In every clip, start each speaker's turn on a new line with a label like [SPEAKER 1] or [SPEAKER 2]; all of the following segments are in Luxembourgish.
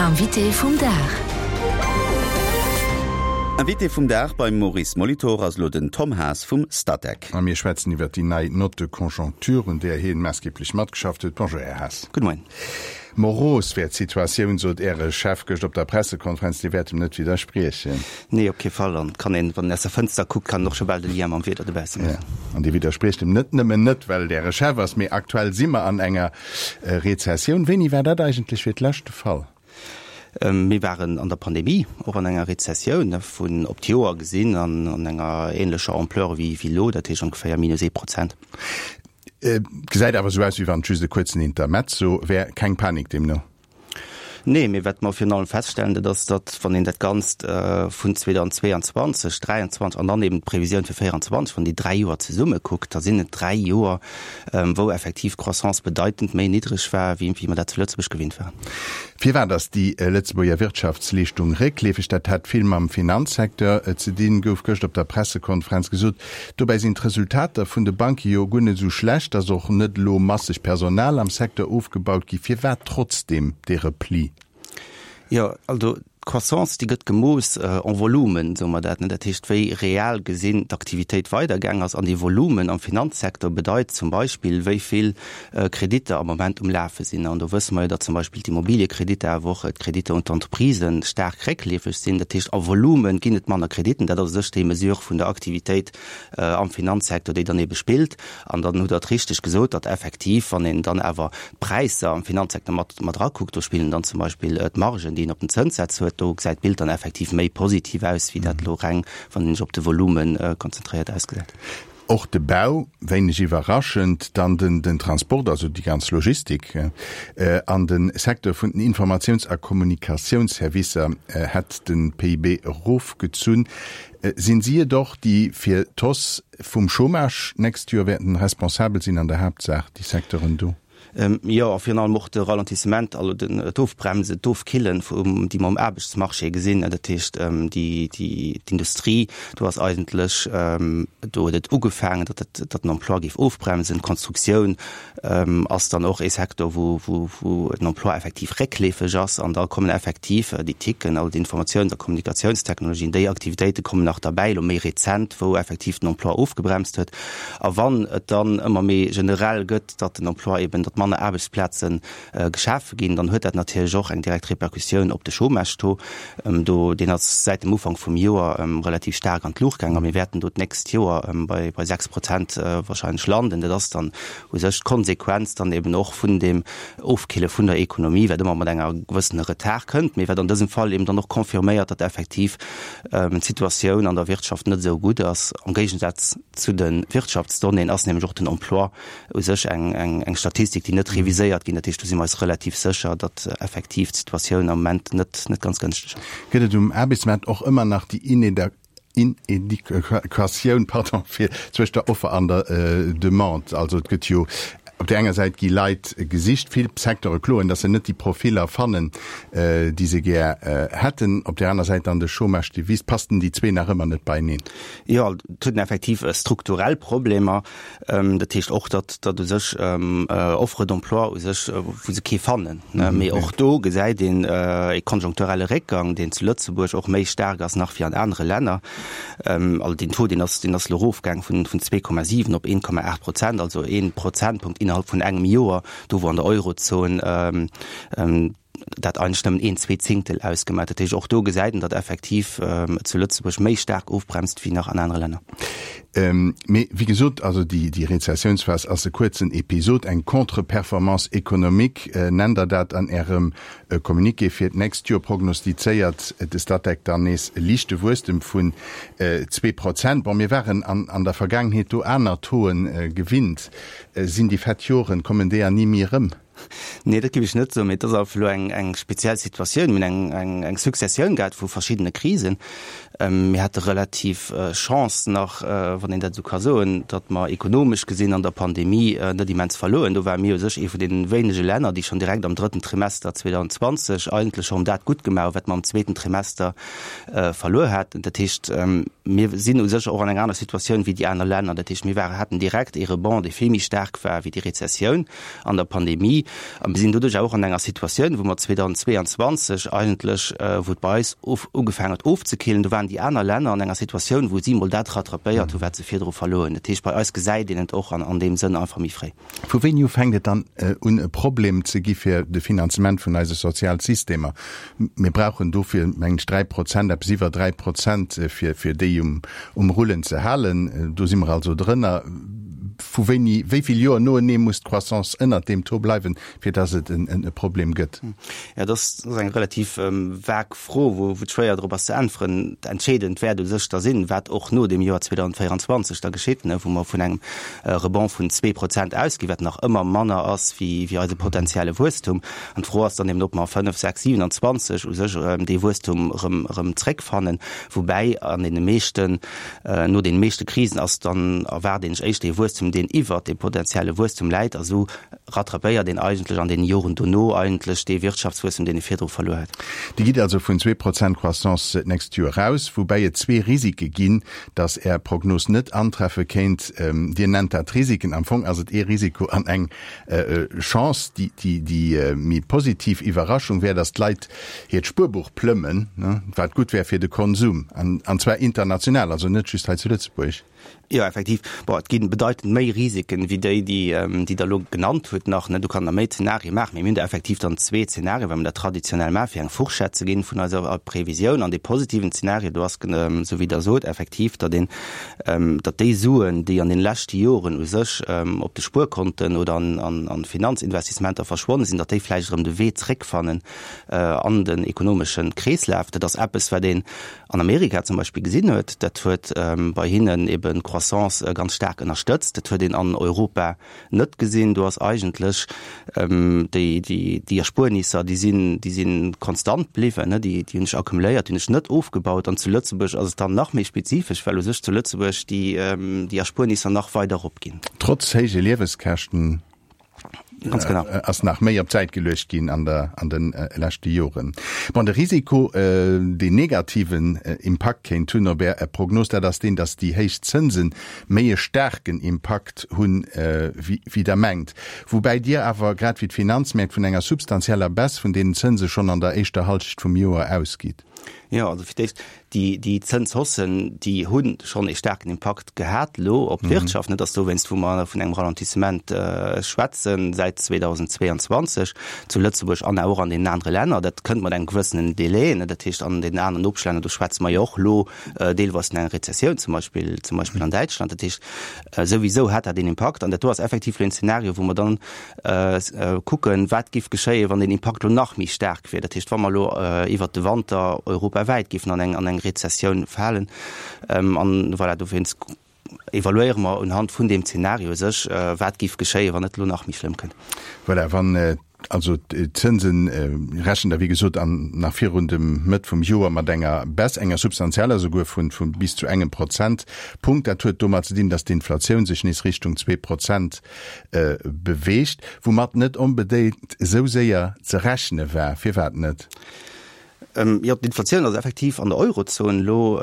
[SPEAKER 1] Invité vum Dag.
[SPEAKER 2] Invité vum Dag beim Maurice Molitor ass elo den Tom Haas vum Statec.
[SPEAKER 3] A mir schwätzen iwwert déi nei Note de conjoncture, un där hien maassgeblech matgeschafft huet. Bonjour, Här Haas.
[SPEAKER 4] Gudde Moien.
[SPEAKER 3] Moros wär d'Situatioun, sot Äre Chef gëscht op der Pressekonferenz. Dir wäert em net widderspriechen?
[SPEAKER 4] Nee, op kee Fall. An et kann een, wann een aus der Fënster kuckt, kann een och scho bal de Lien mam Wieder dobausse maachen.
[SPEAKER 3] An Dir widderspriecht em net nëmmen net, well et Äre Chef ass, mee aktuell si mer an enger Rezessioun. Wéini war dat eigentlech fir d'lescht de Fall?
[SPEAKER 4] Mir waren an der Pandemie och an enger Rezessioun, vun op d'Joer gesinn an enger ähnlecher Ampleur wéi elo, dat heescht ongeféier minus ee Prozent.
[SPEAKER 3] Et gesäit awer esou aus, wéi wann et just e kuerzen Intermezzo wär. Keng Panik deemno?
[SPEAKER 4] Nee, mee wat mer virun allem feststellen, dat ass, datt, wann een dat Ganzt vun 2022, 2023 an dann eben d'Previsioun fir 2024, wann déi dräi Joer zesumme kuckt, da sinn et dräi Joer, wou effektiv d'Croissance bedeitend méi niddreg war, wéi mer dat zu Lëtzebuerg gewinnt waren.
[SPEAKER 3] Firwat ass déi Lëtzebuerger Wirtschaftsleeschtung réckleefeg? Dat hätt vill mam Finanzsecteur ze dinn, gouf gëscht op der Pressekonferenz gesot. Dobäi sinn d'Resultater vun de Banke jo guer net esou schlecht, ass och net elo masseg Personal am Secteur ofgebaut gi. Firwat trotzdeem dee Repli?
[SPEAKER 4] Jo, also d'Croissance, déi gëtt gemooss en Volumen, soe mer dat, ne? Dat heescht, wéi real gesinn d'Aktivitéit weidergaang ass. An dee Volumen am Finanzsecteur bedeit zum Beispill, wéi vill Kreditter am Moment um Lafe sinn. An do wësse mer jo, datt zum Beispill d'Immobiliekreditter, awer och d'Kreditter un d'Entreprisen staark réckleefeg sinn. Dat heescht, a Volume ginn et manner Krediten. Dat ass u sech déi Mesure vun der Aktivitéit am Finanzsecteur, déi dann ebe spillt. An dann hutt Der et richteg gesot, datt effektiv, wann een dann awer d'Präisser am Finanzsecteur mat mat erakuckt, do spillen dann zum Beispill d'Margen, déi een op den Zënssätz huet, do gesäit d'Bild dann effektiv méi positiv aus, wéi dat elo reng, wann een sech op de Volume konzentréiert, ausgesäit.
[SPEAKER 3] Och de Bau, wéineg iwwerraschend, dann den Transport, also déi ganz Logistik, an de Secteur vun den Informatiouns a Kommunikatiounsservicer hätt de PIB erofgezunn. Sinn si et och, déi fir d'Hausse vum Chômage d'nächst Joer wäerten responsabel sinn, an der Haaptsaach déi Secteuren do?
[SPEAKER 4] Jo, a virun allem och de Ralentissement, also den, d'Ofbremsen, d'Ofkillen, vum, déi mer um Aarbechtsmarché gesinn. Dat heescht, déi, déi, d'Industrie, do ass eigentlech, do huet et ugefaangen, datt dat, datt den Emploi géif ofbremsen. D'Konstruktioun ass dann och ee Secteur, wou, wou, wou den Emploi effektiv réckleefeg ass. An da kommen effektiv déi TICen, also d'Informatiouns a Kommunikatiounstechnologien, déi Aktivitéite kommen nach derbäi, elo méi rezent, wou effektiv den Emploi ofgebremst huet. A wann et dann ëmmer méi generell gëtt, datt den Emploi eben, datt manner Aarbechtsplaze geschafe ginn, dann huet dat natierlech och eng direkt Repercussioun op de Chômage-Taux. Do, deen ass säit dem Ufank vum Joer relativ staark an d'Luucht gaang a mir wäerten do d'nächst Joer bei 6 Prozent wahrscheinlech landen. Dat ass dann u sech d'Konsequenz dann eben och vun deem Ofkille vun der Ekonomie, wat ëmmer mat enger gewëssene Retard kënnt, mee wat an dësem Fall eben dann och confirméiert, datt effektiv d'Situatioun an der Wirtschaft net esou gutt ass. Am Géigesaz zu de Wirtschaftsdonnéeën ass nämlech och den Emploi u sech eng Statistik, déi net reviséiert ginn. Dat heescht, do si mer eis relativ sécher, datt effektiv d'Situatioun am Moment net ganz gënschteg ass.
[SPEAKER 3] Gëtt et um Aarbechtsmaart och ëmmer nach déi Inedequatioun, pardon, fir zwëscht der Offer an der Demande? Also et gëtt jo op där enger Säit gi Leit gesicht, vill Secteure kloen, datt se net déi Profiller fannen, déi se gär hätten, op där aner Säit dann de Chômage, dee wiisst. Passten déi zwee nach ëmmer net beieneen?
[SPEAKER 4] Jo, et huet een effektiv strukturell Problemer. Dat heescht och, datt datt u sech Offre d'emploi u sech, wou se kee fannen. Mee och do gesäit een e konjunkturelle Réckgang, deen zu Lëtzebuerg och méi staark ass nach wéi an anere Länner. Also deen Taux, deen ass, deen ass elo erofgaang vun 2,7 op 1,8 Prozent, also ee Prozentpunkt innerhalb vun engem Joer, do wou an der Eurozon dat eigentlech nëmmen een zwee Zéngtel ausgemaach. Dat heescht, och do gesäit een, datt effektiv et zu Lëtzebuerg méi staark ofbremst wéi nach an anere Länner.
[SPEAKER 3] Mee wéi gesot, also déi, déi Rezessiounsphas ass e kuerzen Episod, eng Contre-performance économique nennt Der dat an Ärem Communiqué. Fir d'nächst Joer prognostizéiert de Statec dann nees e liichte Wuesstem vun 2%. Bon, mir waren an, an der Vergaangenheet do aner Tauxen gewinnt. Sinn déi fett Joren, kommen déi an ni méi erëm?
[SPEAKER 4] Nee, dat géif ech net soen, mee et ass einfach elo eng, eng speziell Situatioun. Mir hunn eng, eng, eng Successioun gehat vu verschiddene Krisen. Mir hate relativ Chance nach. wann een dat esou ka soen, datt mer ekonomesch gesinn an der Pandemie net immens verloren. Do ware mir u sech ee vun deene wéinege Länner, déi schonn direkt am drëtten Trimester 2020 eigentlech schonn dat gutt gemaach hu wat mer am zweeten Trimester verluer haten. Dat heescht, mir sinn u sech och an enger aner Situatioun wéi déi aner Länner. Dat heescht, mir waren, haten direkt ee Rebond, dee vill méi staark war wéi déi Rezessioun an der Pandemie. A mir sinn doduerch och an enger Situatioun, wou mer 2022 eigentlech, wou et bei eis of, ugefaangen huet ofzekillen, do waren déi aner Länner an enger Situatioun, wou si mol dat rattrapéiert hu wat se virdru verluer hunn. Dat heescht, bei eis gesäit een et och an an deem Sënn einfach méi fréi.
[SPEAKER 3] Vu wéini u fänkt et dann un e Problem ze gi fir de Finanzement vun eise Sozialsystemer? Mir brauchen dofir, mengen ech, 3 Prozent, eppes iwwer 3 Prozent, fir, fir déi um, um Rullen ze halen. Do si mer also drënner. Vu wéini, wéi vill Joer noenee muss d'Croissance ënnert deem Taux bleiwen, fir dass et en e Problem gëtt?
[SPEAKER 4] Jo, dat ass eng relativ vag Fro, wou et schwéier drop ass ze äntweren. Entscheedend wäert u sech da sinn, wat och no dem Joer 2024 da geschitt, wou mer vun engem Rebond vun 2 Prozent ausginn, wat nach ëmmer manner ass wéi eise potenzielle Wuesstum. An d'Fro ass dann eben, ob mer 5, 6, 27 u sech dee Wuesstum erëm zréckfannen, woubäi an deene meeschten, No deene meeschte Krisen ass dann erwaart een sech éischter ee Wuesstum, deen iwwert dem potenzielle Wuesstum läit, a sou rattrapéiert een eigentlech an deene Joren dono eigentlech dee Wirtschaftswuesstum, deen ee virdru verluer huet.
[SPEAKER 3] Dir gitt also vun 2 Prozent Croissance d'nächst Joer aus, woubäi et zwee Risike ginn, datt Är Prognos net antreffe kéint. Dir nennt dat Risiken, am Fong ass et ee Risiko an eng Chance. Déi méi positiv Iwwerraschung wär, datt d'Leit hiert Spuerbuch plëmmen, wat gutt wär fir de Konsum, an zwar international, also net just hei zu Lëtzebuerg.
[SPEAKER 4] Jo, effektiv. Bon, et gi bedeitend méi Risiken, wéi déi, déi Der elo genannt hutt nach. Do kann Der méi Zenarie maachen. Mee mir hunn der effektiv dann zwee Zenarien, well mer dat traditionell maachen, fir eng Fourchette ze ginn vun eiser Previsioun. An dee positiven Zenario, do ass, esou wéi Der sot, effektiv, datt een, datt déi Suen, déi an deene leschte Joren u sech op de Spuerkonten oder an Finanzinvestissementer verschwonne sinn, datt déi vläicht erëm de Wee zréckfannen an den ekonomesche Kreeslaf. Dat ass eppes, wat een an Amerika zum Beispill gesinn huet. Dat huet bei hinnen eben d'Croissance ganz staark ënnerstëtzt. Dat huet een an Europa net gesinn. Do ass eigentlech déi, déi, déi Erspuernisser, déi sinn, déi si konstant bliwwen, déi, déi hunn sech accumuléiert, déi hunn sech net ofgebaut. An zu Lëtzebuerg ass et dann nach méi spezifesch, well u sech zu Lëtzebuerg déi, déi Erspuernisser nach weider eropginn.
[SPEAKER 3] Trotz héije Lieweskäschten.
[SPEAKER 4] Ganz genau.
[SPEAKER 3] Ass nach méi op d'Säit geluecht ginn an der, an de leschte Joren. Bon, de Risiko, deen negativen Impakt kéint hunn op Är Prognos, dat ass deen, datt déi héich Zënse méi e staarken Impakt hunn, wéi Der mengt. Woubäi Dir awer, grad wéi d'Finanzmäert, vun enger substantieller Baisse vun deenen Zënse schonn an der éischter Halschecht vum Joer ausgitt.
[SPEAKER 4] Jo, also fir d'éischt, déi, déi Zënshaussen, déi hu schonn ee staarken Impakt gehat elo op d'Wirtschaft. Net ass dowéinst, wou mer vun engem Ralentissement schwätzen säit 2022 zu Lëtzebuerg an och an deenen anere Länner. Dat kënnt mat engem gewëssenen Delai. Dat heescht, an deenen aneren Nopeschlänner, do schwätze mer jo och elo deelweis vun enger Rezessioun, zum Beispill, zum Beispill an Däitschland. Dat heescht, souwisou hat dat een Impakt. An dat do ass effektiv elo een Zeenario, wou mer dann kucken, wat géif geschéien, wann deen Impakt elo nach méi staark wier. Dat heescht, wa mer elo iwwert de Wanter europawäit géifen an eng an eng Rezessioun falen. An voilà, dowéinst evaluéiere mer unhand vun deem Zeenario u sech, wat géif geschéien, wann et elo nach méi schlëmm kënnt.
[SPEAKER 3] Voilà, wann also d'Zënsen rechent Der wéi gesot an nach virun dem Mëtt vum Joer mat enger Baisse, enger substantieller souguer, vu bis zu engem Prozentpunkt. Dat huet domat ze dinn, datt d'Inflatioun sech nees Richtung 2 Prozent beweegt, woumat net onbedéngt esou séier ze rechne war. Firwat net?
[SPEAKER 4] Jo, d'Inflatioun ass effektiv an der Eurozon elo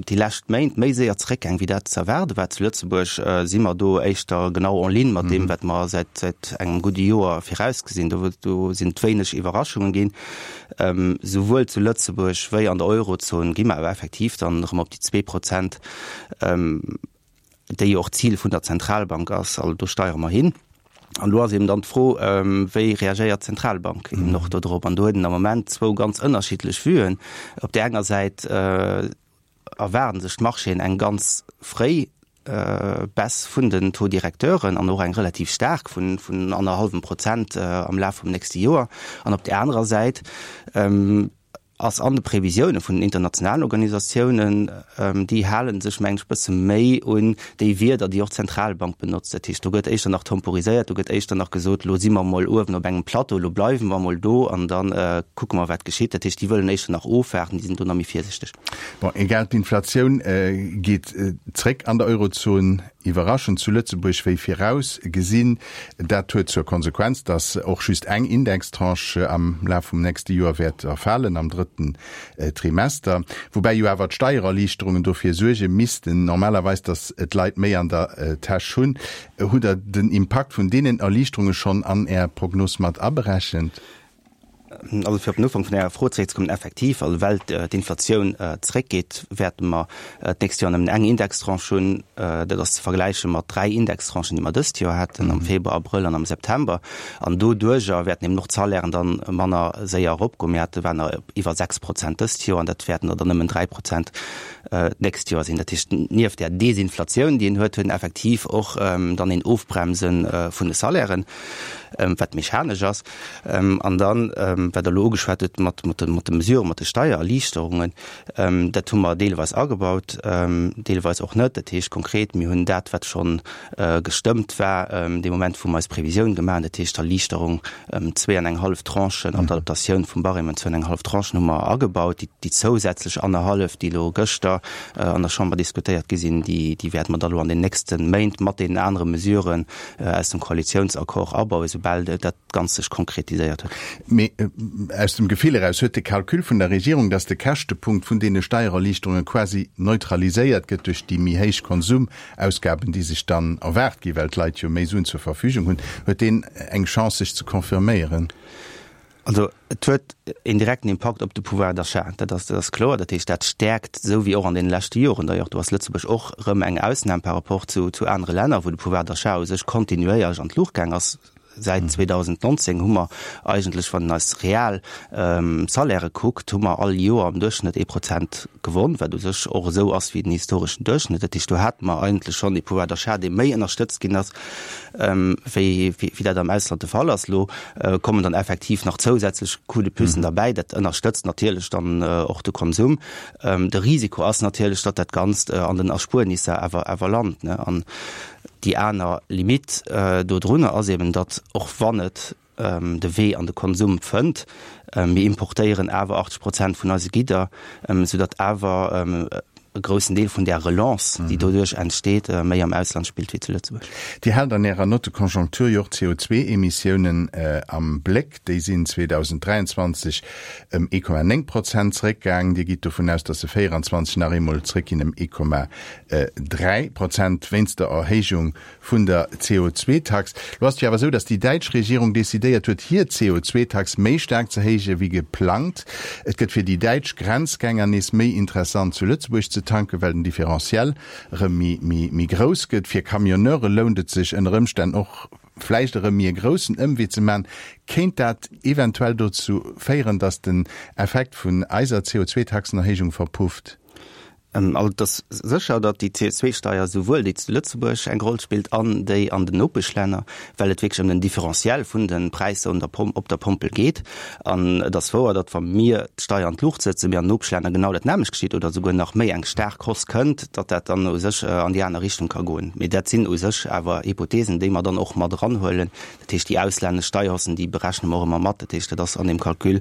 [SPEAKER 4] déi lescht Méint méi séier zeréckgaang, wéi dat ze erwaarde war. Zu Lëtzebuerg si mer do éischter genau en ligne mat deem, wat mer säit engem gudde Joer virausgesinn. Do do sinn et wéineg Iwwerraschungen ginn. Souwuel zu Lëtzebuerg wéi an der Eurozon gi mer awer effektiv dann erëm op déi 2 Prozent, déi jo och d'Zil vun der Zentralbank ass. Also do steiere mer hin. An do ass eben dann d'Fro, wéi reagéiert d'Zentralbank eben och do drop? An do huet een am Moment zwou ganz ënnerschiddlech Vuen. Op där enger Säit erwaarden sech d'Marchéen eng ganz fréi Baisse vun den Taux-directeuren an och eng relativ staark vun annerhallwem Prozent am Laf vum nächste Joer. An op där anerer Säit. ass an de Previsioune vun den internationalen Organisatiounen, déi hale sech, mengen ech, e bësse méi un déi Wierder, déi och d'Zentralbank benotzt. Dat heescht, do gëtt éischter nach temporiséiert, do gëtt éischter nach gesot, elo si mer emol uewen op engem Plateau, elo bleiwe mer emol do an da kucke mer, wat geschitt. Dat heescht, déi wëllen éischter nach ofwaarden, déi sinn do nach méi virsichteg.
[SPEAKER 3] Bon, egal, d'Inflatioun geet zréck an der Eurozon. Iwwerraschend zu Lëtzebuerg wéi viraus gesinn. Dat huet zur Konsequenz, datt och just eng Indextranche am Laf vum nächste Joer wäert erfalen, am drëtten Trimester. Woubäi jo awer d'Steiererliichterungen dofir suerge missten normalerweis, datt d'Leit méi an der Täsch hunn. Hutt Der den Impakt vun deenen Erliichterunge schonn an Är Prognos mat aberechent?
[SPEAKER 4] Also fir op den Ufank vun Ärer Fro zeréckzekommen, Effektiv, also well d'Inflatioun zeréckgeet, wäerte mer d'nächst Joer nëmmen eng Indextranche hunn. Dat ass ze vergläiche mat dräi Indextranchen, déi mer dëst Joer haten, am Februar, Abrëll an am September. An doduerjer wäerten eben och d'Salairen dann manner séier eropgoen. Mir hate waren der iwwer 6 Prozent dëst Joer an dat wäerten der dann nëmmen 3 Prozent d'nächst Joer sinn. Dat heescht, nieft där Desinflatioun, déi een huet, huet een effektiv och dann een Ofbremse vun de Salairen, wat mechanesch ass. An dann, wat Der elo ugeschwat hutt mat de Mesuren, mat de Steiererliichterungen, dat hu mer deelweis agebaut, deelweis och net. Dat heescht konkret, mir hunn dat, wat scho gestëmmt war dee Moment, wou mer eis Previsioun gemaach hunn, dat heescht d'Erliichterung ëm zwee an eng hallef Tranchen an d'Adaptatioun vum Barème ëm zwou an eng hallef Tranchen hu mer agebaut. Déi zousätzlech annerhallef, déi elo gëschter an der Chamber diskutéiert gi sinn, déi wäerte mer da elo an den nächste Méint mat deenen anere Mesuren aus dem Koalitiounsaccord abauen, soubal dat Ganzt sech konkretiséiert huet.
[SPEAKER 3] Mee aus dem Gefill eraus, huet de Calcul vun der Regierung, datt de Käschtepunkt vun deene Steiererliichterunge quasi neutraliséiert gëtt duerch déi méi héich Konsumausgaben, déi sech dann erwaart ginn, well d'Leit jo méi Suen zur Verfügung hunn, huet deen eng Chance sech ze confirméieren?
[SPEAKER 4] Also et huet een direkten Impakt op de Pouvoir d'achat, dat ass, dat ass kloer. Dat heescht, dat stäerkt, esou wéi och an deene leschte Joren d'ailleurs, do ass Lëtzebuerg och erëm eng Ausnam par rapport zu, zu anere Länner, wou de Pouvoir d'achat u sech kontinuéierlech an d'Luucht gaang ass. Säit 2019 hu mer eigentlech, wann een eis real Salairë kuckt, hu mer all Joer am Duerchschnëtt ee Prozent gewonn, wat u sech och esou ass wéi den historeschen Duerchschnëtt. Dat heescht, do hate mer eigentlech schonn ee Pouvoir d'achat, dee méi ënnerstëtzt ginn ass, wéi, wéi dat am Ausland de Fall ass. Elo kommen dann effektiv nach zousätzlech Coup de pucen derbäi. Dat ënnerstëtzt natierlech dann och de Konsum. De Risiko ass natierlech, datt dat Ganzt an den Erspuernisser awer, awer lant, ne. An déi aner Limite dodrunner ass eben, datt och wann et de Wee an de Konsum fënnt, mir importéieren awer 80 Prozent vun eise Gidder, soudatt awer e groussen Deel vun där Relance, déi doduerch entsteet, méi am Ausland spillt wéi zu Lëtzebuerg.
[SPEAKER 3] Dir haalt an Ärer Note de conjoncture jo och d'CO2-Emissiounen am Bléck. Déi sinn 2023 ëm 1,9 Prozent zeréckgaang. Dir gitt dovun aus, datt se 24 nach eemol zeréckginn ëm 1,3 Prozent wéinst der Erhéijung vun der CO2-Tax. Lo ass et jo awer esou, datt déi däitsch Regierung decidéiert huet, hir CO2-Tax méi staark ze héije wéi geplangt. Et gëtt fir déi däitsch Grenzgänger nees méi interessant zu Lëtzebuerg ze tanken, well den Différentiel erëm méi grouss gëtt. Fir Camionneure lount et sech ënner Ëmstänn och vläicht erëm méi e groussen Ëmwee ze man. Kéint dat eventuell dozou féieren, datt den Effekt vun eiser CO2-Taxenerhéijung verpufft?
[SPEAKER 4] Also et ass sécher, datt déi CO2-Steier souwuel déi zu Lëtzebuerg eng Roll spillt an déi an den Nopeschlänner, well et wierklech ëm den Différentiel vun de Präisser un der Pom op der Pompel geet. An et ass wouer, datt wa mir d'Steier an d'Luucht sëtzen, mee an den Nopeschlänner genau dat nämmlecht geschitt oder souguer nach méi eng staark Hausse kënnt, datt dat dann u sech an déi aner Richtung ka goen. Mee dat sinn u sech awer Hypothesen, déi mer dann och mat eranhuelen. Dat heescht, déi auslännesch Steierhaussen, déi berechne mer och ëmmer mat. Dat heescht, dat ass an deem Calcul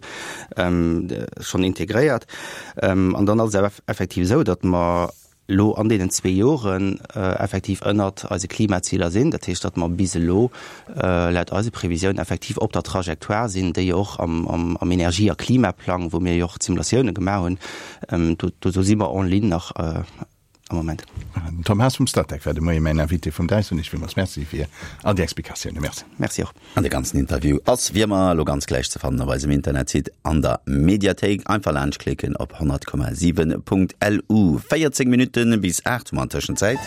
[SPEAKER 4] schonn integréiert. An dann ass et awer effektiv esou, datt mer elo an deenen zwee Joren effektiv ënnert eise Klimaziler sinn. Dat heescht, datt mer bis elo laut eise Previsiounen effektiv op der Trajectoire sinn, déi och am Energie a Klimaplang, wou mir jo och d'Simulatioune gemaach hunn, do do si mer en ligne nach am Moment.
[SPEAKER 3] Den Tom Haas vum Statec war de Moie mäin Invité vum Dag. Soen ech villmools Merci fir all déi Explikatiounen. Merci.
[SPEAKER 4] Merci och.
[SPEAKER 2] An de ganzen Interview ass wéi ëmmer elo ganz gläich ze fannen op eisem Internetsite an der Mediathéik. Einfach laanscht klicken op 100,7.lu. 14 Minutten bis 8 hu mer an Tëschenzäit.